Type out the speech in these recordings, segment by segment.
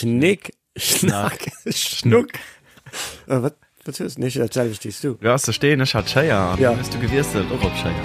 Schnick, Schnack, Schnuck. Äh, wat, wat hues du? Nee, dat selwecht wéi s du. Du has de Steen, ech hat d'Schéier an Ja. dann hues du gewiesselt och op Schéier.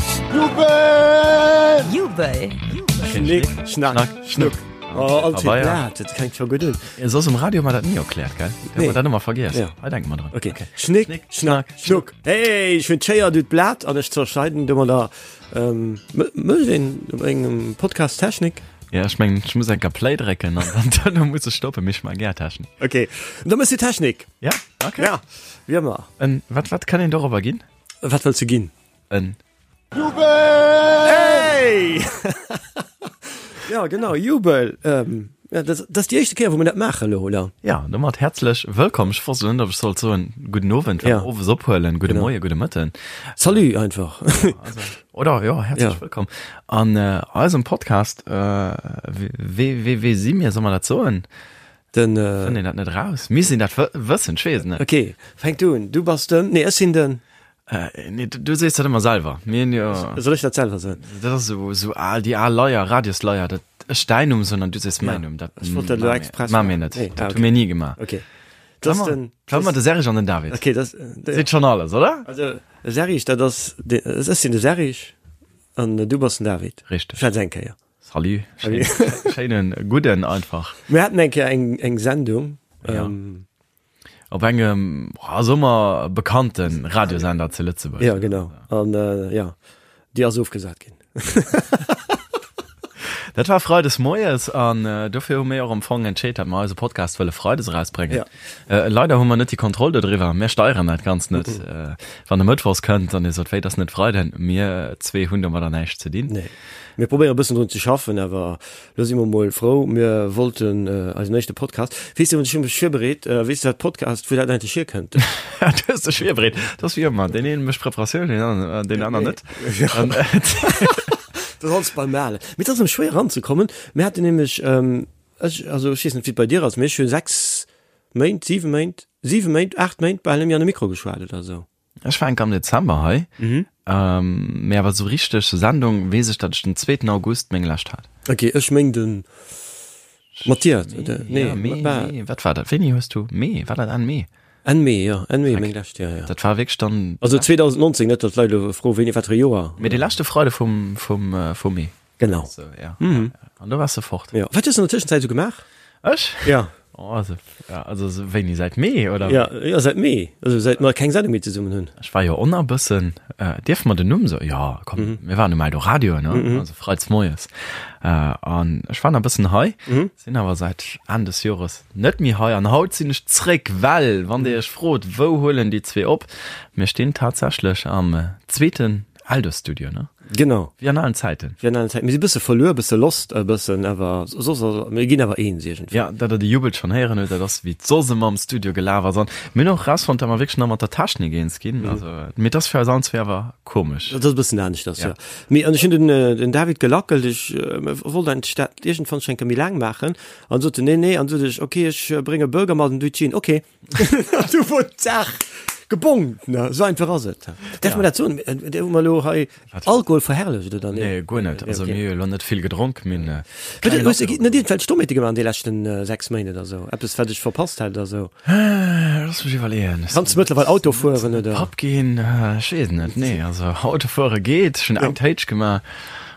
Jubel! Jubel! Schnick, Schnack, Schnuck. Oh, all Pabeier. Blatt, dat klingt scho gutt un. Ja, Soss um Radio hu mer dat ni erkläert, gell? Da Nee. hu mer dat ëmmer vergiess. Ja. Hei denke mer dran. Okay. Schnick, Schnick, Schnack, Schnuck. Hey, ech hunn d'Schéier, du d'Blat an ech zerschneiden domadder. Ähm, mécht een op engem Podcast Technik? Ja, ech mengen, ech muss enker Play drécken an dann duerno muss ech stoppen, mee ech man gär Technik. Okay, da mëss du Technik. Ja, okay. Ja, wéi ëmmer. En, wat, wat kann een dorobber ginn? Wat wëlls du ginn? En. Jubel! Hey! ja, genau, Jubel. Ähm, ja, dat, dat ass déi éischte Kéier, wou mir dat maachen elo, oder? Ja, domat häerzlech wëllkomm. Ech wosst elo net, ob ech sollt soen, gudden Owend, well Ja. mer owes ophuelen, gudde Genau. Moien, gudde Mëtten. Salut einfach. Also, oder jo, häerzlech Ja. wëllkomm an äh, eisem Podcast. Äh, wee, wee, wee si mir, soll mer dat soen? Den, äh, Fënnt een dat net raus? Misst een dat wë wëssen? Ech weess et net. okay, fänk du un. Du bass den, nee, ech sinn den. Äh, nee, du, du sees dat ëmmer selwer. Mir hunn jo, Soll ech dat selwer soen? dat ass esou, esou al, déi al Leier, Radiosleier, dat ech däin Numm soen an du sees mäin Numm. Dat Ech wollt dat elo ma mir- express ma mir maachen. net. Nee, ah, Dat hu okay. mir ni gemaach. Okay. Dat ass den, War mer de Serge an den David. okay, das, de, Seet schon alles, oder? also, Serge, dat ass, de, ech sinn de Serge an du bass den David. Richteg. Schwätz eng Kéier. Salut. Schéin, schéinen gudden einfach. Mir haten eng Kéier eng, eng Sendung. Ja. Ähm, Op engem, oh, soe mer, bekannte Radiosender zu Lëtzebuerg. Ja, genau. An äh, ja, déi ass ofgesat ginn. Dat war Freides moies an äh, dofir hu mir och am Fong entscheet, dat mer eise Podcast wëlle Freides erausbréngen. Ja. Äh, leider hu mer net déi Kontroll dodriwwer. Mir steieren dat Ganzt net. Äh, wann e Mëttwochs kënnt an Dir sot, wéi, dat ass net Freiden, mir zwee hunn domadder näischt ze dinn. Nee. Mir probéiere e bëssen drun ze schaffen, awer Lo si mer mol frou, mir wollten eisen éischte Podcast. Weess de, ech hu mech virbereet, weess de wat Podcast, wou dat eigentlech hierkënnt? Du hues dech virbereet, dat ass wéi ëmmer, deen een mécht Preparatioun, deen aner, deen aner net. Dat ass alles beim Alen. Mee et ass erëm schwéier eranzekommen. Mir haten nämlech, ech, also ech weess net wéi et bei dir ass, mee ech hu 6 Méint, 7 Méint, 7 Méint, 8 Méint bal net méi an de Mikro geschwat oder esou. Ech war enk am Dezember hei, mhm. mee awer sou richteg Sendung weess ech, datt ech den zweeten August meng lescht hat. Okay, ech meng den Mathias, oder? Nee, ja, Mee, war, Mee, wat war dat? Wéini hues du Mee? War dat Enn Mee? Enn Mee, ja, Enn Mee meng lescht, ja, ja. Dat war wierklech dann. Also 2019, net datt d'Leit elo froen, wéini, wat fir e Joer. Mee de leschte Freide vum, vum, vum Mee. Genau. So, ja. Mhm. An do wars de fort. Ja. Wat hues du an der Tëschenzäit sou gemaach? Ech? Ja. Oh, also, ja, also so wéini säit Mee oder? Ja, ja säit Mee. Also säit mer keng Sendung méi zesummen hunn. Ech war jo on a bëssen, äh, dierfe mer den Numm soen? Ja, komm, mhm. mir waren um Eldoradio, ne? Mhm. Also freits moies. Äh, an ech war nach bëssen hei, mhm. sinn awer säit Enn des Jores net méi hei an haut sinn ech zréck, well wann dir iech frot, wou huelen déi zwee op? Mir stinn tatsächlech am äh, zweeten Eldo-Studio, ne? Genau. Wéi an alen Zäiten. Wéi an alen Zäiten. Mir si bësse verluer, bësse lost e bëssen, awer soss, mir ginn awer eens iergendwéi. Ja, dat der de Jubel schonn héieren hutt, dat ass wéi et soss ëmmer am Studio gelaf ass. An mir hunn och erausfonnt, dat mer wierklech nach mat der Technik eens ginn. Also, mee et ass fir eis allen zwee awer komesch. Dat ass e bëssen aneschters, ja. Mee an ech hunn den, den David gelackelt, ech wollt eigentlech dat iergendwann schonn eng Kéier méi laang maachen, an sot en, nee, nee, an sot ech, okay, ech brénge Burger mat an du d'Jean, okay. Du wor d'Saach gebongt, ne? Esou einfach ass et. Däerf mer dat soen? Hu mer elo hei Alkohol verherrlecht oder nee? Nee, guer net. Also mir hu jo elo net vill gedronk. Mir hunn keng Hues de net iergendwelch Dommheete gemaach an de leschten 6 Méint oder esou? Eppes, wat ech verpasst hätt oder esou? Looss mech iwwerleeën. Kanns de mëttlerweil Auto fueren oder? Papp ginn? Ech weess et net. Nee, also Auto fuere geet. Ech hunn eng Téitsch gemaach.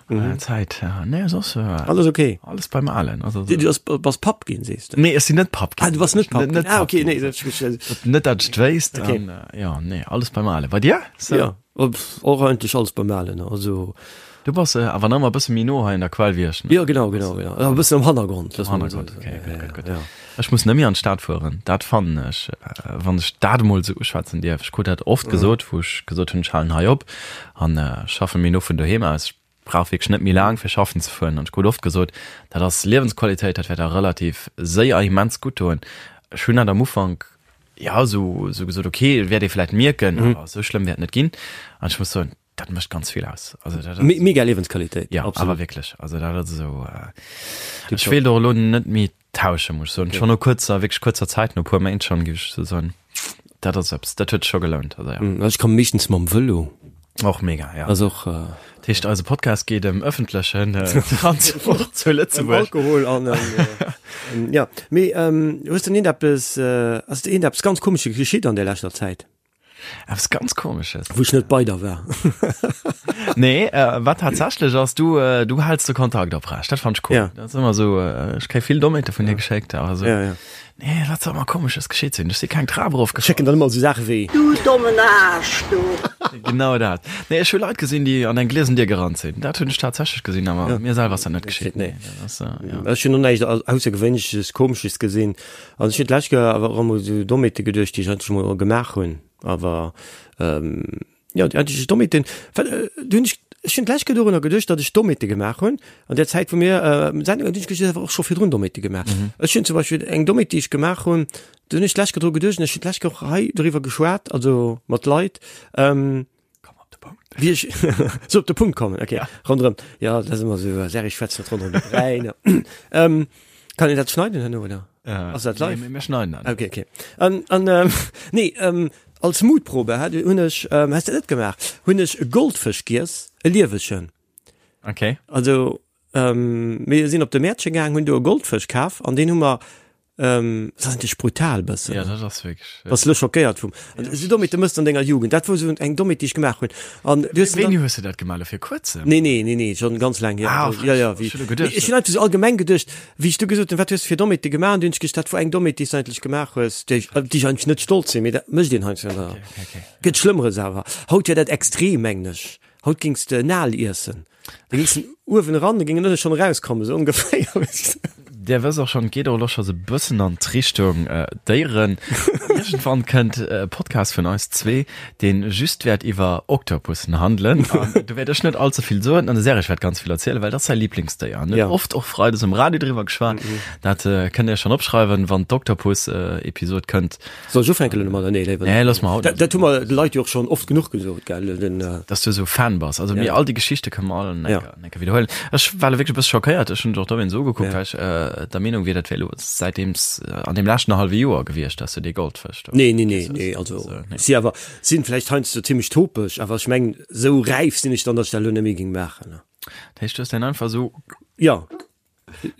Mhm. Zäit, ja. Nee, soss, äh, Alles okay. Alles beim Alen. Also, Du, du bass, bass Papp ginn, sees du? Nee, ech sinn net Papp ginn. Ah, du bass net Papp ginn. Net, ah, okay, nee, dat, net dat ech wéisst. Okay. An, äh, ja, nee, alles beim Alen. Bei dir? So. Ja, och eigentlech alles beim Alen. Also. Du bass äh, awer nach ëmmer e bësse méi no hei an der Quell wéi ech. Ne? Ja, genau, genau, genau. E bëssen am Hannergrond. Am Hannergrond, okay, gutt, gutt, gutt. Ja. Ech muss net méi an d'Stad fueren. Dat fannen ech, äh, wann ech dat emol esou uschwätzen dierf. Ech krut dat oft mhm. gesot, wou ech gesot hunn, ech halen hei op an äh, schaffe méi no vun doheem aus. Ech brauch wierklech net méi laang fir schaffen ze fueren. An ech krut oft gesot, dat ass Liewensqualitéit, dat wäert der relativ séier immens gutt doen. Ech hunn dat am Ufank ja esou esou gesot, okay, wäert ee vläicht mierken, mhm. awer esou schlëmm wäert net ginn. An ech muss soen, dat mécht ganz vill aus. Also dat ass, Mega Liewensqualitéit. Ja, absolut. awer wierklech. Also dat ass esou äh, ech wéilt och elo net méi tauschen, muss ech soen. Okay. Schon no kuerzer, wierklech kuerzer Zäit, no puer Méint schon, géif ech esou soen, dat ass eppes, dat huet sech scho gelount. Also ja. Ech komme meeschtens mam Vëlo. Och mega, ja. Ass och. Dat heescht, eise Podcast geet ëm ëffentlechen Transport zu Lëtzebuerg. Alkohol an ëm, ja. Mee hues de iergendeppes, ass der iergendeppes ganz Komesches geschitt an der leschter Zäit? Eppes ganz Komesches? Wou ech net bei der war. Nee, wat tatsächlech ass, du, du häls de Kontakt oprecht. Dat fand ech cool. Ja. Dat ass ëmmer esou, ech kréie vill Dommheete vun dir geschéckt, awer esou. Ja, ja. Nee, wat soll mer komesches geschitt sinn? Ech si keng Trap erofgefall. Schécken dann ëmmer esou Saache wéi. Du dommen Aarsch, du! Genau dat. Nee, ech hu Leit gesinn, déi an eng gliesen Dier gerannt sinn. Dat hunn ech tatsächlech gesinn, awer ja. mir selwer ass dat net geschitt. Nee. Dat ass, äh, ja. Ech hunn och näischt Aussergewéinleches, Komesches gesinn. Also ech hunn d'lescht Kéier awer och emol esou Dommheete geduecht, déi ech eigentlech emol gemaach hunn. Awer, ähm, Jo, déi eigentlech Dommheeten, well do hunn ech, ech hunn d'lescht Kéier dorunner geduecht, datt ech Dommheete gemaach hunn an där Zäit, wou mir Sendungen, hunn ech geduecht, ech hätt awer och scho virdrun Dommheete gemaach. Ech hunn zum Beispill eng Dommheet, déi ech gemaach hunn, do hunn ech d'lescht Kéier dru geduecht an ech hunn d'lescht Kéier och hei doriwwer geschwat, also mat Leit, Komm op de Punkt. wéi ech sou op de Punkt kommen, okay, ronderëm, jo, dat ass ëmmer esou, Serge schwätzt net ronderëm de Bräi, ne. Kann een dat schneiden herno, oder? Ass dat live? Nee, mir schneiden dat. Okay, okay. An, an ähm, nee, ähm, als Mutprobe hat, hunn ech, ähm, has de net gemaach, hunn ech e Goldfësch giess, e liewegen. Okay. Also, ähm, mir sinn op de Mäertche gaang, hunn do e Goldfësch kaf an deen hu mer, ähm, dat ass eigentlech brutal bëssen. Ja, dat ass wierklech. Bass lo schockéiert vum. Ja. Esou Dommheete mëss de an denger Jugend. Dat wor esou eng Dommheet, déi ech gemaach hunn. An du hues Wéini hues de dat gemaach? Lo fir kuerzem? Nee, nee, nee, nee, schon ganz laang hier. Ah, ja, ja, wéi, ech hunn elo geduecht. Ech hunn einfach sou allgemeng geduecht, wéi ech du gesot hunn, wat hues de fir Dommheete gemaach? An du hunn ech gescht, dat wor eng Dommheet, déi s du eigentlech gemaach hues, déi ech, op déi ech eigentlech net stolz sinn, mee dat mécht een heiansdo. Okay, okay, okay. Gëtt Schlëmmeres awer. Haut wär dat extrem, mengen ech. Haut géings de en Aal iessen. Da géings en uewen eran, da géing en ënne schonn erauskommen, esou ongeféier, weess de. Dir wësst och schonn, et geet och elo scho sou e bëssen an d'Richtung Déieren. Iergendwann kënnt e Podcast vun eis zwee, dee just wäert iwwer Oktopussen handelen. An do wäert ech net all ze vill soen an de Serge wäert ganz vill erzielen, well dat ass säi Liblingsdéier. En huet oft och freides um Radio driwwer geschwat. Dat kënnt Dir schonn opschreiwen, wann d'Oktopus-Episod kënnt. Soll ech ufänken elo domadder? Nee, léiwer net. Nee, looss mer haut net. Dat hu mer de Leit jo och schonn oft genuch gesot, gell? Den. Dass du esou Fan bass. Also mir all déi Geschichte kënne mer all en enker, en enker widderhuelen. Ech war elo wierklech e bësse schockéiert. Ech hunn dech och dowéinst ugekuckt, well ech der Meenung wier, dat wär elo säitdeems an deem leschten hallwe Joer gewiescht, dass du dee Goldfësch do Nee, nee, nee, nee. Also si awer sinn vläicht heiansdo zimmlech topeg, awer ech mengen, esou räif sinn ech dann, dass ech dat elo net méi géing maachen. Dat heescht, du hues deen einfach esou. Jo.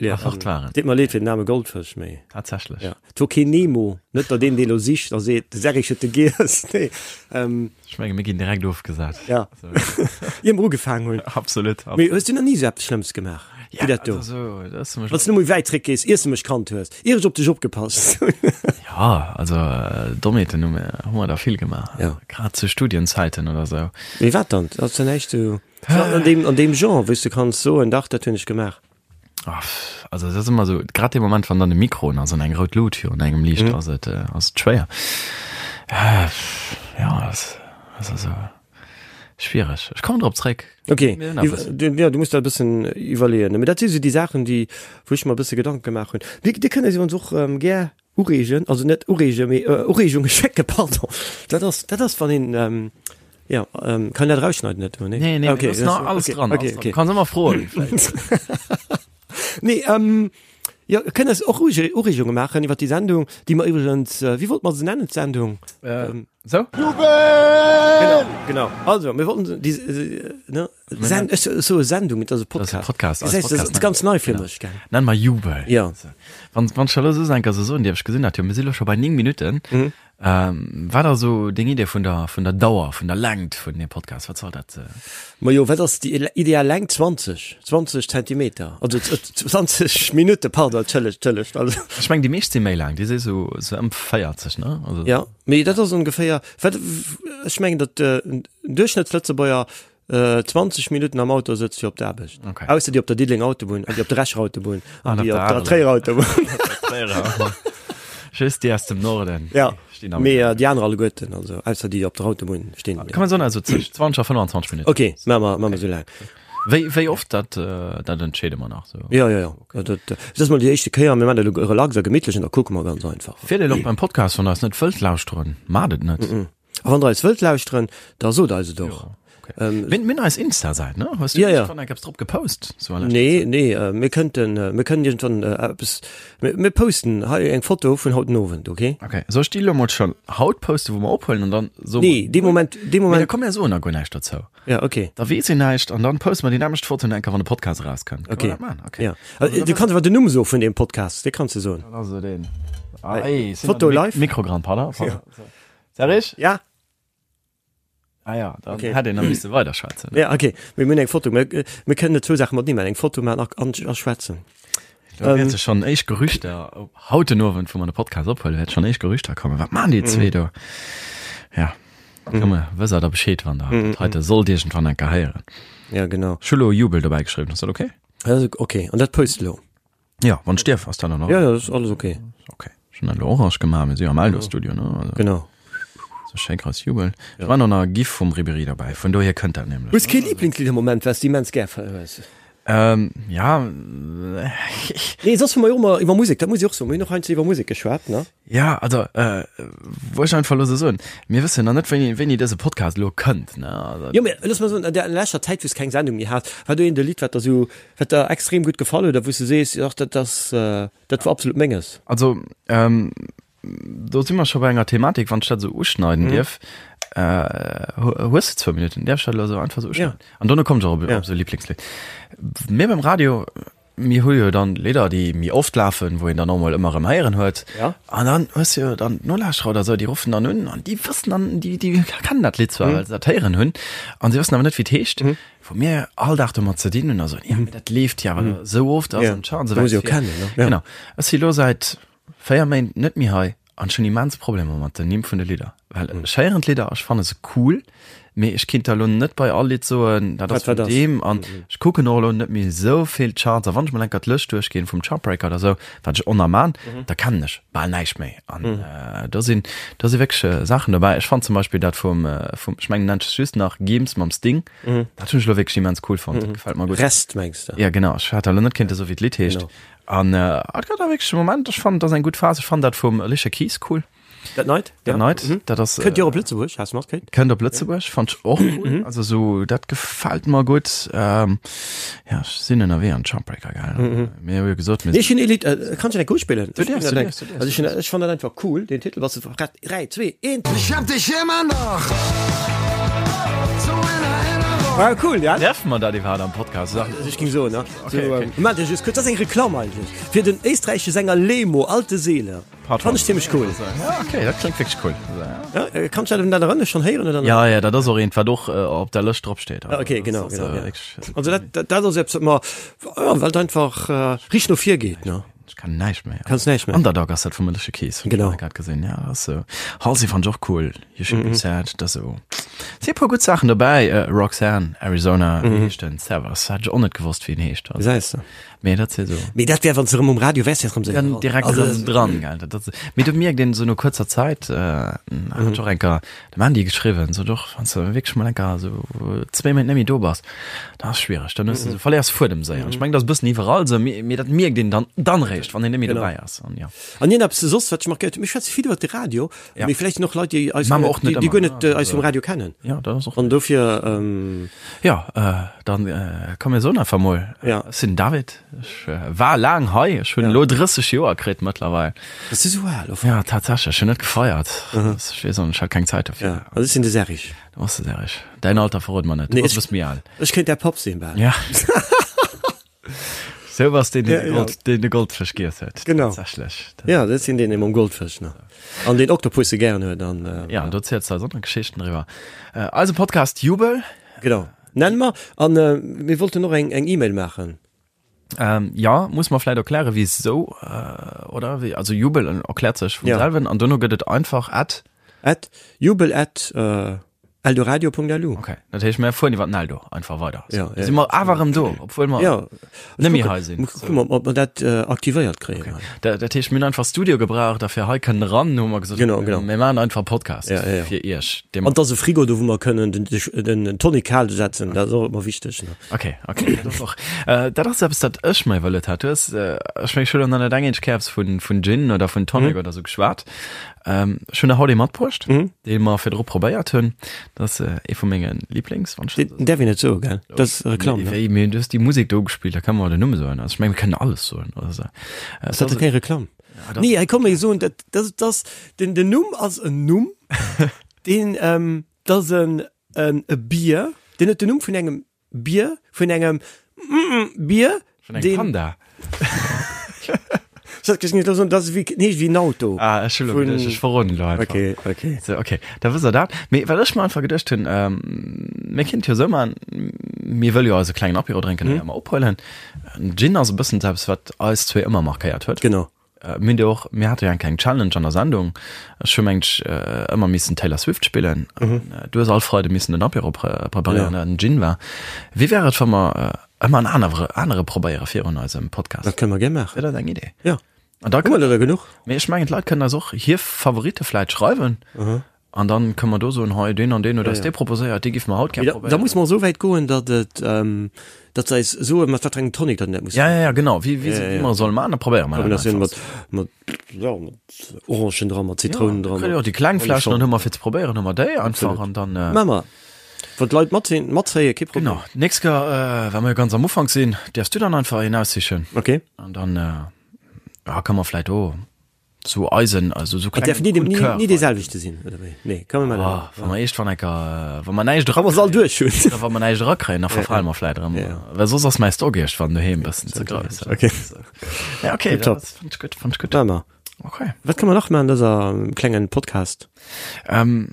Ja, fort waren. Deet mer leed fir den aarme Goldfësch, mee. Tatsächlech. Ja. Et wor keen Nemo, net datt een dee lo sicht a seet, de Serrig huet de giess. Nee. Ähm. Ech menge mir ginn direkt ofgesat. Ja. Ier mer ugefaangen hunn. Absolut. Mee hues du nach ni esou eppes Schlëmmes gemaach wéi dat do? Also, dat ass Wann s du méi wäit zréck gees, iers de mech kannt hues, ier ech op dech opgepasst hunn. Ja, also Dommheeten hu mir, hu mer der vill gemaach. Ja. Grad zu Studienzäiten oder sou. Mee wat dann? Ass da näischt sou. An deem, an deem Genre, wou s de kanns soen, dach, dat hunn ech gemaach. Ah, also dat ass ëmmer esou, grad dee Moment, wann dann de Mikro un ass an eng rout Lut virun engem liicht, mm. ass et, äh, ass et schwéier. Äh, ja, das, das ass also schwierig. Ech kommen drop zréck. Okay, du, ja, du musst da e bëssen iwwerleeën. Mee dat si sou déi Saachen, déi, wou ech mer e bësse Gedanke gemaach hunn. Dir, dir kënnt eis iwwerens och ähm, gär Ureegen, also net ureegen, mee Ureegunge schécken, pardon. Dat ass, dat ass wann een, ähm, ja, ähm, kann dat erausschneiden net, nee? Nee, nee, okay, das nach alles okay, dran. Okay, alles dran. okay. Kannst ëmmer froen. Nee, ähm, ja, kënnt eis och Ureegunge maachen iwwer déi Sendung, déi mer iwwregens, wéi wollt mer se nennen, d'Sendung? Ähm, Sou? Jubel! Genau, genau. Also, mir wollten déi, ne? Sen ech soe Sendung, et ass e Podcast. Podcast. Podcast, Das heißt, das ist ganz nei fir mech, gell? Nenn mer Jubel. Ja. Wann, wann ech elo soss eng Kéier sou soen dierf, ech gesinn dat jo, mir si lo scho bei 9 Minutten. Mhm. Ähm, wat ass sou deng Idee vun der, vun der Dauer, vun der Längt vun deem Podcast? Wat soll dat? Äh? Majo, wat ass déi ideal Längt? 20, 20 Zentimeter, also 20 Minutte, pardon, entschëllegt, entschëllegt. Also. Ech meng, déi meescht si méi laang, déi si sou, sou ëm 40, ne? Also. Ja, mee dat ass ongeféier, wat, ech mengen, datt en Duerchschnëttslëtzebuerger 20 Minutten am Auto sëtzt fir op d'Aarbecht. Okay. Ausser déi op der Diddelenger Autobunn an déi op der Echer Autobunn an An op déi der op der Areler. Tréierer Autobunn. Tréierer. Just déi aus dem Norden. Ja, Stinn am mee déi aner alleguerten, also ausser déi op der Autobunn stinn. Kann man soen, also zwëschen 20 a 25 Minutten. Okay, maache mer, maache mer esou laang. Wéi, wéi oft, dat, dat entscheede mer nach sou. Ja, ja, ja. Okay. Dat, dat ass mol déi éischte Kéier. Mir maachen dat elo relax a gemittlech an da kucke mer ganz einfach. Wier Dir och beim Podcast, wann Der eis net wëllt lauschteren, maacht et net. A wann Der eis wëllt lauschteren, da sot eis et och. Jo. Okay. Ähm, mir, mir hunn eis Insta-Säit, ne? Hues du ja, ja. iergendwann eng eppes drop gepost? So an leschter Nee, Zäit? nee, äh, mir kënnten, äh, mir kënnen iergendwann äh, eppes, mir, mir posten hei eng Foto vun haut den Owend, okay? Okay, soll ech déi elo mol schon haut posten, wou mer ophuelen an dann so Nee, dee Moment, dee Mee da Moment, komm mir soen da guer näischt dozou. ja, okay. Da weess een näischt an dann poste mer déi nämmlecht Foto enker, wann de Podcast erauskënnt. Kënne mer Okay. dat maachen? Okay. Ja. Also, du kanns awer den Numm soe vun deem Podcast, dee kanns du soen. Dat ass esou deen. Ah, ey, sinn Foto an de live? Mikro dran, pardon. pardon. Ja. Serge? Ja. Ah ja, dann Okay. hätt een nach misse weiderschwätzen. Ja, okay. Mir hunn eng Foto. Mir, mir kënnen net zwou Saache matenee maachen. Eng Foto maachen a, an, a schwätzen. Da wäerte schonn éischt Gerüchter, op haut den Owend, wou mer de Podcast ophuelen, wäerte schonn éischt Gerüchter kommen. Wat maachen déi zwee do? Ja, komm, wësst der da Bescheed, wann der dat heite sollt iergendwann eng Kéier héieren. Ja, genau. Ech hu lo Jubel dobäi geschriwwen, ass dat okay? Dat ass okay. An dat post elo? Ja, wann ech dierf, ass dat an Ordnung? Ja, ja, dat ass alles okay. Okay. Ech hunn dat elo orange gemaach, mir si jo am Eldo-Studio, ne? Also, Genau. So schéi grouss Jubel. Ja. War nach nach e Gif vum Ribéry derbäi, vun dohier kënnt dat nämlech. Hues kee Lieblingslidd am Moment, wat s de immens gär hues? Ähm, ja. Nee, soss hu mer jo ëmmer iwwer Musek, dat muss ech och soen, mir hunn och heiansdo iwwer Musek geschwat, ne? Ja, also, äh, wou ech einfach elo sou soen, mir wëssen nach net, wéini, wéini dëse Podcast elo kënnt, ne? Also, Jo, mee looss mer soen, an der leschter Zäit, wou s keng Sendung méi has, war do eent e Lidd, wat der sou, wat der extrem gutt gefall huet a wou s de sees, ach, dat ass, dat war absolut menges? Also, ähm, do si mer scho bei enger Thematik, wann ech dat esou uschneiden dierf. Äh, hues de zwou Minutten? Däerf ech dat elo esou einfach esou uschneiden? Ja. An dono kommt ech och op, Ja. op esou Lieblingslidd. Mir beim Radio, mir hu jo dann Lidder, déi méi oft lafen, wou een dann och mol ëmmer erëm héieren huet. Ja. An dann hues du jo dann d'Nolauschterer oder esou, déi ruffen dann un an déi wëssen dann, déi, déi kennen dat Lidd zwar, well se dat héieren hunn, an se wëssen awer net, wéi et heescht. Wou mir all Dag domat ze dinn hunn a soen, ja, mee dat leeft jo awer esou oft, ass an tja, an esou Muss jo wäit. kennen, ne? Ja. Genau. Ech si lo säit 4 Méint net méi hei an ech hunn immens Problemer mat den Nimm vun de Lidder, well ech héieren d'Lidder a ech fanne se cool, mee ech kinnt der elo net bei all Lidd soen, dat ass Wat vun wat ass. deem an ech kucken och elo net méi esou vill Charts a wann ech mol enker d'Lëscht duerchginn vum Chartbreaker oder esou, wat ech oner man, da kennen ech bal näischt méi an do sinn do si wierklech Saachen dobäi. Ech fannen zum Beispill dat vum vum ech mengen nennt sech just nach Gims mam Sting, dat hunn ech elo wierklech immens cool fonnt, dat gefält mer gutt. Rest mengs de? Ja genau, ech hat elo net kéinte soe wéi d'Lidd heescht. Genau. An et gëtt da wierklech e Moment, ech fannen, dat ass eng gutt Phas. Ech fannen dat vum Alicia Keys cool. Dat neit? Dat neit, dat ass. Kënnt jo och op Lëtzebuerg, has du matkritt? Kënnt op Lëtzebuerg, fannt ech och cool. Also sou, dat gefält mer gutt. Ja, ech sinn ënnerwee an Chartbreaker, gell? Mir hu jo gesot, mir Nee, ech hunn ee Lidd, kann ech dat enk uspillen? Du däerfs, du däerfs, du däerfs. Also ech hunn, ech fannen dat einfach cool, deen Titel, was du, 3, 2, 1. Ich hab dich immer noch so in Erinnerung. Ah, cool, ja? Däerfe mer dat iwwerhaapt am Podcast soen? Also ech ging soen, ne? Okay, so, okay. Ähm, Moment, ech just kurz, das ass eng Reklamm eigentlech fir den éisträichesche Sänger Lemo, Alte Seele. Part Fand ech zimmlech cool. Ja, okay, dat kléngt wierklech cool. Ja, äh, kannst du dat erënnere schon héieren oder net? Ja, ja, dat ass och eent, wat och äh, op der Lëscht drop steet. Ah, okay, genau, Das ass, genau, äh, ja. wierklech- Also dat, dat, dat ass eppes, wat mer, ja, well et einfach äh, richteg no vir geet, ne? Ech kann näischt méi. Kanns näischt méi. Underdog ass dat vum Alicia Keys. Genau. Grad gesinn, ja, dat ass sou. Halsey fand ech och cool. You Should Be Sad, dat ass sou. Si e puer gutt Saachen dobäi. Äh, Roxanne, Arizona, wéi heescht den? Servus, hat ech och net gewosst, wéi en heescht. Also, Gesäis de. mee dat si sou. Mee dat wär, wann s de erëm um Radio wärs, wär erëm sou. Dann direkt Also, erëm dran, gell. Dat ass, mee do mierkt een sou no kuerzer Zäit, äh, hat ech och eng Kéier dem Andy geschriwwen, sou doch, wann s de wierklech mol eng Kéier sou zwéi Méint net méi do bass, dat ass schwiereg, dann hues de sou, verléiers Fuedem séier. An ech mengen, dat ass e bëssen iwwerall sou, mee, mee dat mierkt een dann, dann réischt, wann een net méi Genau. dobäi ass. An jo. An iergend eppes soss, wat ech markéiert hunn, mir schwätze vill iwwer de Radio, Ja. mee vläicht sinn och Leit, déi eis Maache mer och net déi, déi guer ëmmer, net ne? äh, eis vum Radio kennen. Ja, dat ass och. An dofir, ähm, Ja, äh, dann äh, komm mir soen einfach mol. Ja. Ech sinn den David, ech äh, war laang hei, ech hunn elo 30 Joer kritt mëttlerweil. Bass du sou al? Of? Ja, tatsächlech, ech hunn net gefeiert. Ech weess och net, ech hat keng Zäit dofir. Ja, also ech sinn de Serge. Du bass de Serge. Däin Alter verrot mer net. Du Nee, bass e ech, bësse méi al. ech kéint däi Papp sinn bal. Ja. Sou bass deen, deen Ja, de ja. Gold, deen de Goldfësch giess huet. Genau. Tatsächlech. Ja, dat sinn deen, dee mam Goldfësch, ne? An deen Oktopusse gären huet an, äh, Ja, an do ziels du eis och nach Geschichten driwwer. Äh, eise Podcast Jubel. Genau. Nenne mer. An äh, mir wollten och eng, eng E-Mail maachen. Ähm, ja, muss mer vläit erklären, wisou, äh, oder? Wéi, also Jubel erkläert sech vum Ja. selwen an dono gëtt et einfach at. At jubel at äh, eldoradio.lu. Okay, dat heescht, mir fueren iwwer den Eldo einfach weider. Ja, So, ja. Si mer awer erëm do, obwuel mer Ja, net méi hei sinn. Kucke mer, ob mer dat äh, aktivéiert kréien. Okay. Dat, dat heescht, mir hunn einfach Studio gebraucht a fir hei kënnen eran, hu mer gesot, Genau, genau. mir maachen einfach Podcast Ja, ja, ja. fir iech. Dee An et ass e Frigo do, wou mer kënnen den, den, den Tonic kal setzen, dat ass och ëmmer wichteg. Ne? Okay, okay, dat ass och, äh, dat ass eppes, dat ech mer iwwerluet hat. Du hues, äh, ech meng, ech hunn nach net eng eenzeg Kéier eppes vun, vun Gin oder vun Tonic oder sou geschwat. Ähm, ech hunn der haut ee matbruecht, dee mer virdru probéiert hunn. Dat ass ee vu menge Lieblings, wann ech dat esou. Däerf een net soen, gell? Dat ass Reklamm, ne? Wéi, mee du hues déi Musek do gespillt, da kënne mer den Numm soen. Also ech menge mir kënnen alles soen, oder sou. Ass dat da keng Reklamm? Nee, hei komm, mir soen dat, dat ass, den, den Numm ass en Numm, deen, dat ass en, en, e Bier, deen huet den Numm vun engem Bier, vun engem Bier, Vun engem Panda. Dat ass wéi, nee, wéi en Auto. Ah, ech hunn elo geduecht, ech verroden elo einfach. Okay, okay. So, okay, da wësst der dat. Mee wat ech mer einfach geduecht hunn, ähm, mir kinnt jo esou maachen, mir wëlle jo eise klengen Apéro drénken, mm. ëmmer ophuelen. Gin ass e bëssen eppes, wat eis zwee ëmmer markéiert huet. Genau. Mir hunn jo och, mir hate jo eng kleng Challenge an der Sendung. Ech hu mengt ech ëmmer missen Taylor Swift spillen. Du hues all Freide missen den Apéro preparéieren, dat en Gin war. Wéi wär et, wa mer ëmmer en anere anere probéiere virun eisem Podcast? Dat kënne mer gär maachen. Wier dat eng Idee? Jo. An da Hu mer der der genuch? Mee ech mengen, d'Leit kënnen eis och hir Favoritte vläit schreiwen. An dann kënne mer do soen, hei deen an deen huet eis dee proposéiert, dee géife mer haut gär probéieren. Da muss mer esou wäit goen, datt et, datt se eis soen, mat wat fir engem Tonic datt en dat muss Ja, ja, ja, genau, wéi, wéi, wéi mer e solle maachen, da probéiere mer dat einfach. Mat, mat, ja, mat Orangen dran, mat Zitrounen dran. Jo, déi kleng Fläschen, dann hu mer fir ze probéieren, hu mer déi einfach an dann. Maache mer. Wann d'Leit matzéien, matzéien, kee Problem. Genau, d'nächst Kéier, well mer jo ganz am Ufank sinn, däerfs du dann einfach een aussichen. Okay. An dann, ja, ka mer vläit och. Sou eisen, also sou kleng. Därf ni, ni, ni dee selwechte sinn, oder wéi? Nee, kann man oh, Wann mer eescht wann enker, wann mer näischt era, all duerch hunn. Oder wann mer näischt erakréien, da verfale mer vläit erëm. Ja. Well soss ass mäi Stock iergendwann doheem e bëssen ze grouss. Okay. Ja, okay, dat fand ech gutt, fand ech gutt. Maache mer. Okay. Wat kann mer nach maachen an dëser klengen Podcast? Ähm,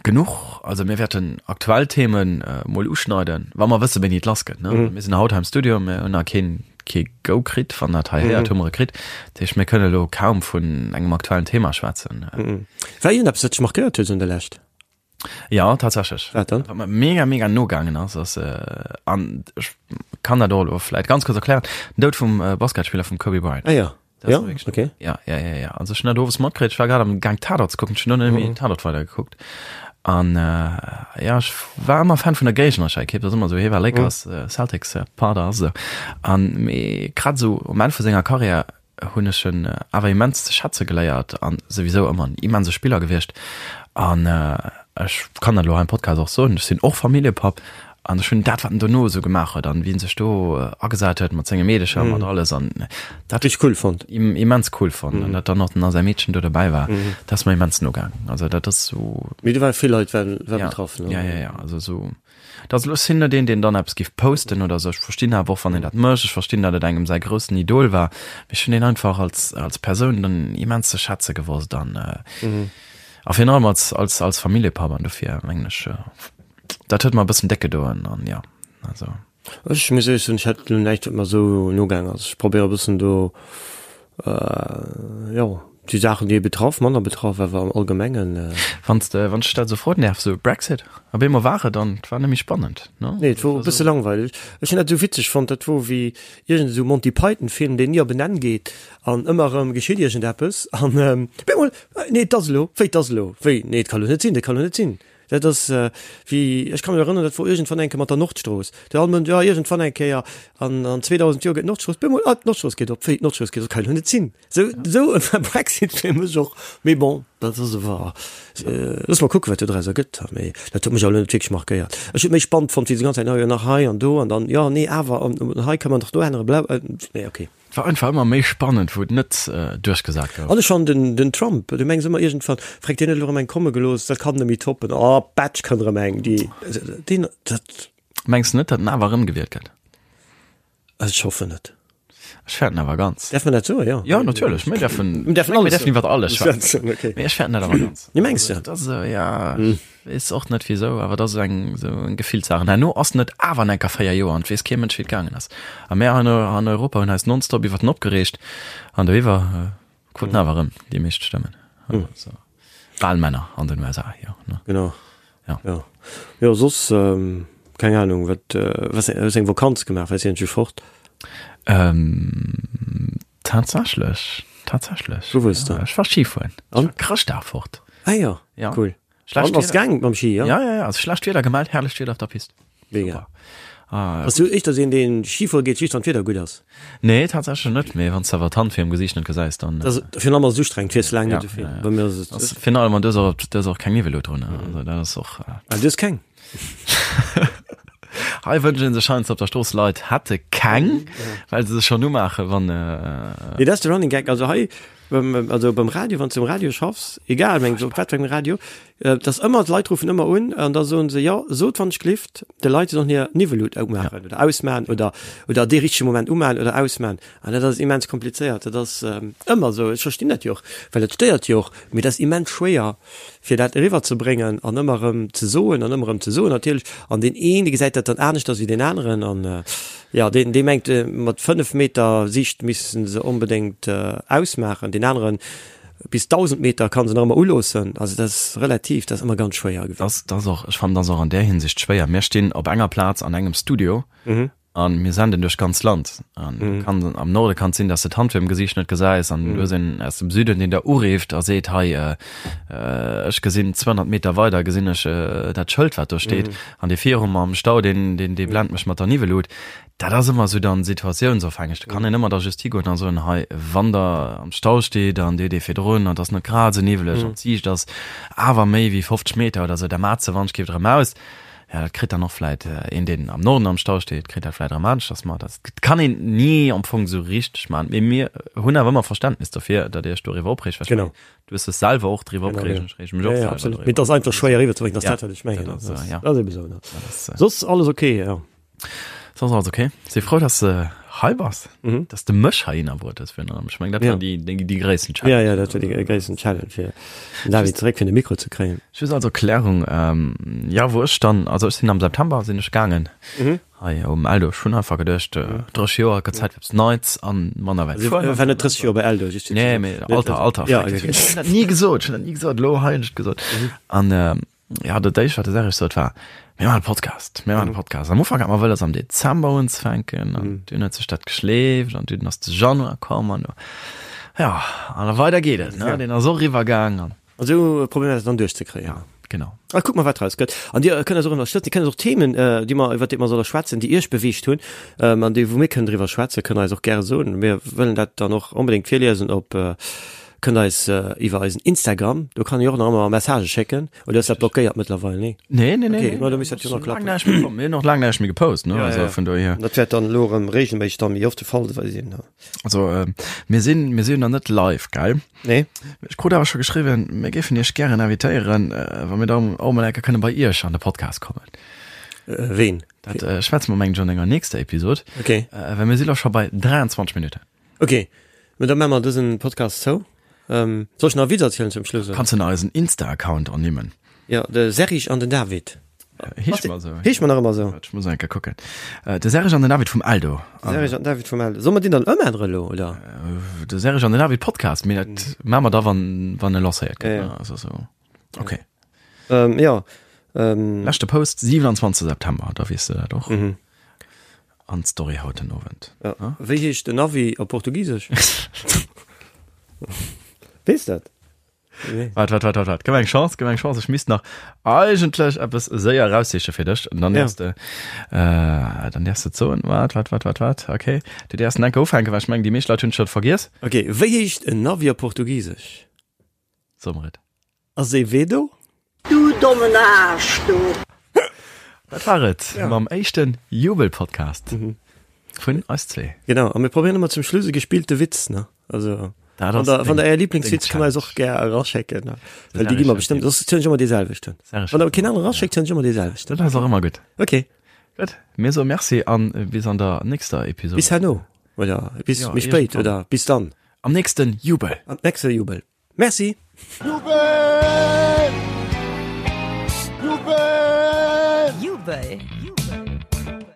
Genuch, also mir wäerten aktuell Themen mol uschneiden, wa mer wësse wéini et lass gëtt, ne? Mir sinn haut hei am Studio, mir hunn nach keen kee Go kritt, wann dat hei héiert, hu mer e kritt. Dat heescht, mir kënne elo kaum vun engem aktuellen Thema schwätzen. War iergendeppes, wat dech markéiert huet esou an der Lescht? Jo, tatsächlech. Wat dann? Wat mer mega, mega nogaangen ass, ass, an ech kann dat och elo vläit ganz kuerz erklären, den Doud vum Basketspiller vum Kobe Bryant. Ah jo. Das Ja, war wirklich- okay. Ja, ja, ja, ja. Also ech hun dat owes matkritt, ech war grad am Gaang Tatort ze kucken, ech hun noch net méi Tatort weider gekuckt. An äh, ja, ech war ëmmer Fan vun der géignerescher Ekipp, dat ass ëmmer sou, hie war Lakers, äh, Celtics äh, Pader a sou. An mee grad sou um Enn vu senger Karriär hunn ech en awer immens ze schätze geléiert an souwisou ëmmer en immense Spiller gewiescht. An äh, ech kann dat elo hei am Podcast och soen, ech sinn och Familljepapp An ech hunn dat, wat en dono esou gemaach huet an wéi en sech do agesat huet mat senge Meedecher, mat alles an dat Richteg cool fonnt. immens cool fonnt. An dat dann och nach säi Meedchen do dobäi war, dat ass mer immens nogaang. Also dat ass esou. Mee do ware vill Leit war war betraff, ne? Ja, ja, ja, also esou, dat ass elo, ech sinn net een, deen dann eppes géif posten oder esou. Ech verstinn awer och, wann een dat mécht. Ech verstinn, datt et engem säi groussen Idol war. Mee ech hunn deen einfach als, als Persoun dann immens ze schätze gewosst an a virun allem als, als, als Familljepapp an dofir mengen ech, Dat huet mer e bëssen déck gedoen an jo, also. Ech muss éierlech soen, ech hätt elo näischt wat mer esou nogaang ass. Ech probéiere e bëssen do, jo, déi Saachen déi ee betraff, manner betraff, awer am Allgemengen. Wann s de, wann ech dat esou froen däerf, esou Brexit, op eemol war et an et war net méi spannend, ne? Nee, et wor e bësse langweileg. Ech hunn dat esou witzeg fonnt, dat wor wéi iergend esou Monty Python Film, deen ni op en Enn geet an ëmmer erëm geschitt iergendeppes an op eemol, nee et ass elo, wéi et ass elo, wéi, nee et ka lo net sinn, dat ka lo net sinn. Dat ass wéi, ech ka mech erënneren, dat wor iergendwann eng Kéier mat der Nordstrooss. Do all Mënsch, jo iergendwann eng Kéier an an 2000 Joer gëtt d'Nordstrooss, bemol, ah d'Nordstrooss geet op, wéi d'Nordstrooss geet op, dat kann jo net sinn. Sou, sou e Brexit fir mech och. Mee bon, dat ass awer, loosse mer kucken, wat do draus ergëtt. Mee dat huet mech awer elo net wierklech markéiert. Ech hunn et méi spannend fonnt, wéi se déi ganz Zäit, jo nach hei an do an dann, jo nee awer an hei ka man dach do änneren, bla, nee okay. Et war einfach ëmmer méi spannend, wou et net duerchgesat gouf. An ech fannen den den Trump, du mengs ëmmer iergendwann, freck deen huet elo erëm eng komme gelooss, dat kann net méi toppen, oh Batsch kënnt erëm eng, déi deen dat. Mengs de net, datt en awer erëmgewielt gëtt? Ech hoffen net. Ech fäerten awer ganz. Däerf man dat soen? Jo. Jo, natierlech, mir däerfen, Mir däerfen alles mir däerfen iwwer alles schwätzen. Okay. Mee ech fäerten dat awer ganz. Nee, mengs de? Dat ass esou, ja. Weess och net wisou, awer dat ass eng esou eng Gefillssaach. An herno ass en et awer enker 4 Joer an et weess kee Mënsch wéi et gaangen ass. A mär an an Europa hunn eis nonstop iwwert en opgereegt an doiwwer kruten awer erëm déi meescht Stëmmen. Also Walmänner an den USA, jo ne. Genau. Ja. Jo. Jo soss keng Ahnung wat was hues eng Vakanz gemaach, waars iergendwéi fort? Tatsächlech, tatsächlech. Wou wuars de? Ech war Ski fueren. Ech war Chrëschtdag fort. Ah jo, Ja. cool. Schlecht An ass gaang mam Ski, ja? Ja, ja, ja. Also schlecht Wieder gemellt, herrlecht Wieder op der Pist. Mega. Ah, Bass du éischter sou een, deen Ski fuere geet, just wann d'Wieder gutt ass? Nee, tatsächlech net, mee wann s de awer d'Hand virum Gesiicht net gesäis, dann. Dat ass virun allem ass et ustrengend, fiers laang net Ja, esou vill. ja, ja. Bei mir ass et. Ass virun allem, an du hues och, du hues och keng Niwwelut drun, also dat ass och. Ah, du hues keng? Hei wënschen sech heiansdo op der Strooss Leit hätte keng, well se sech schonn umaachen, wann. Nee, dat ass de Running Gag. Also hei beim, also beim Radio, wann s du um Radio schaffs, egal meng op wat fir engem Radio, et ass ëmmer, d'Leit ruffen ëmmer un an da soen se, jo, sot wann ech glift, de Leit se sollen hir Niwwelut umaachen oder ausmaan oder, oder dee richtege Moment umaan oder ausmaan. An dat ass immens komplizéiert. Dat ass ëmmer esou. Ech verstinn dat jo och, well et stéiert jo och, mee dat ass immens schwéier, fir dat eriwwer ze bréngen an ëmmer erëm ze soen an ëmmer erëm ze soen natierlech. An deen een, dee gesäit dat dann aneschters wéi deen aneren an jo, deen, dee mengt, mat 5 Meter Siicht misste se onbedéngt ausmaachen, deen aneren bis 1.000 Meter kann se nach ëmmer uloossen. Also dat ass relativ, dat ass ëmmer ganz schwéier. Dat ass och, ech fannen, dat ass och an där Hinsicht schwéier. Mir stinn op enger Plaz an engem Studio An mir senden duerch d'ganz Land. An mm. kann, am Norde kann sinn, dass de d'Hand virum Gesiicht net gesäis an mm. du hues een aus dem Süden, deen der ureeft a seet hei äh, äh, ech gesinn 200 Meter weider gesinn ech äh, dat Schëld wat do steet mm. an dee virum am Stau den den dee blend mech mat der Niwwelut. Dat ass ëmmer sou dann situatiounsofhängeg. Da kann een ëmmer da just higoen an soen hei wann der am Stau steet an dir dee virdrun an ass net grad sou niwweleg mm. an d'Siicht ass awer méi wéi 50 Meter oder sou, da mat se wann ech géif erëm aus. Ja, dat kritt dann och vläit een, deen am Norden am Stau steet, kritt dat vläit erëm aneschters mat. Dat kann een ni am Fong esou richteg maachen. Mee mir hunn awer ëmmer Verständnis dofir, datt Dir Iech doriwwer opreegt. Well ech Genau. mengen, du hues dech selwer och driwwer Genau, opgereegt genau. an ech reege mech Ja, och ja, selwer absolut. driwwer Mee et ass op. einfach schwéier eriwwerzebréngen, dat ass Ja, dat, wat ech mengen. dat ass, Dat ja. ass ebe sou, ne? Dat ass, Soss alles okay, ja. Soss alles okay. Si frou, dass de hei bass, Mhm. dass de mech heihinner bruet hues virun allem. Ech mengen, dat Ja. war déi, déi, déi gréissten Challenge. Ja, ja, dat war déi gréissten Challenge, fir den David zeréck fir de Mikro ze kréien. Just als Erklärung, ähm, ja, wou ech dann, also ech sinn am September sinn ech gaangen Mhm. hei um Eldo. Ech hunn einfach geduecht, äh, 30 Joer, gëtt Zäit fir eppes Neits an manner wäit Also, fueren. war net 30 Joer bei Eldo, just fir ze Nee, soen. mee Alter, Alter, Ja, fuck, okay. ech hunn dat ni gesot, ech hunn dat ni gesot, elo hei hunn ech et gesot. An, ähm, Ja, dat éischt, wat de Serge sot, war, Mir maachen e Podcast, mir maachen e Podcast. Am Ufank hat mer wëlles am Dezember unzefänken an dunn huet sech dat geschleeft an dunn ass de Januar komm an ja, an da weider geet et, ne? Deen ass och eriwwer gaang an. An esou probéiere mer dat dann duerchzekréien. Ja, genau. A kucke mer, wat draus gëtt. An Dir kënnt eis och ënnerstëtzen. Dir kënnt eis och Themen, déi mer, iwwer déi mer solle schwätzen, déi Iech beweegt hunn an déi, wou mir kënnen driwwer schwätzen, kënnt Der eis och gäre soen. Mir wëllen dat dann och onbedéngt virliesen op Kënnt eis iwwer eisen Instagram, do kann ee och nach ëmmer Messagë schécken. Oder ass dat blockéiert mëttlerweil? Nee? Nee, nee, nee. Okay, ma da misst dat jo nach klappen. Laang näischt méi komm. Mir hunn och laang näischt méi gepost, ne? Ja, Also ja. vun dohier. Dat wäert dann elo erëm reegelméisseg dann méi oft de Fall sinn. Also äh, mir sinn, mir sinn nach net live, gell? Nee. Ech krut awer scho geschriwwen, mir géifen Iech gären invitéieren, äh, wa mir dann och mol eng Kéier kënne bei Iech an de Podcast kommen. Äh, ween? Dat äh, schwätze mer mengen ech an enger nächster Episod. Okay. Äh, well mir si lo scho bei 23 Minutten. Ok, mä da maache mer dësen Podcast zou. Ähm, soll ech nach e Witz erzielen zum Schluss? Kanns de nach eisen Insta-Account ernimmen? Jo, de Serge an den David. Heescht mer esou. Heescht mer nach ëmmer esou. Ech muss eng Kéier kucken. De Serge an den David vum Eldo. De Serge an den David vum Eldo. Solle mer deen dann ëmännere elo, oder? De Serge an den David Podcast, mee dat maache mer da wann, wann e lancéiert gëtt. Ja, ja. Also esou. Ok. Ähm, jo. Ähm. Leschte Post, 27 September, da weess de dat och. An d'Story haut den Owend. Ja. Wéi heescht den Navi op Portugisesch? Weess dat? Nee. Waart, waart, waart, waart, waart. Gëff mer eng Chance, gëff mer eng Chance. Ech misst nach eigentlech eppes séier eraussiche fir dech. An dann däerfs de, äh, dann däerfs de et soen. Waart, waart, waart, waart, waart. Okay. Du däerfs en enke ufänken, well ech mengen, déi meescht Leit hunn et scho vergiess. Okay, wéi heescht en Navi op Portugisesch? So mer et. Azevedo? Du dommen Aarsch, du! Dat war et mam éischten Jubelpodcast vun eis zwee. Genau, a mir probéieren ëmmer zum Schluss e gespillte Witz, ne? Also, Dat wann ass der, wann deng- der Är Lieblingswitz deng kënnt der eis och gär eraschécken, ne? Well déi gi mer bestëmmt, soss zielen ech ëmmer dee selwechten. Wann der keen anere eraschéckt, zielen ech ëmmer dee selwechten. Dat ass och ëmmer gutt. Okay. Gutt, mir soe Merci an bis an der nächster Episode. Bis herno, oder bis Ja, méi spéit, iergendwann. oder bis dann. Am nächsten Jubel. Am nächste Jubel. Merci. Jubel! Jubel! Jubel!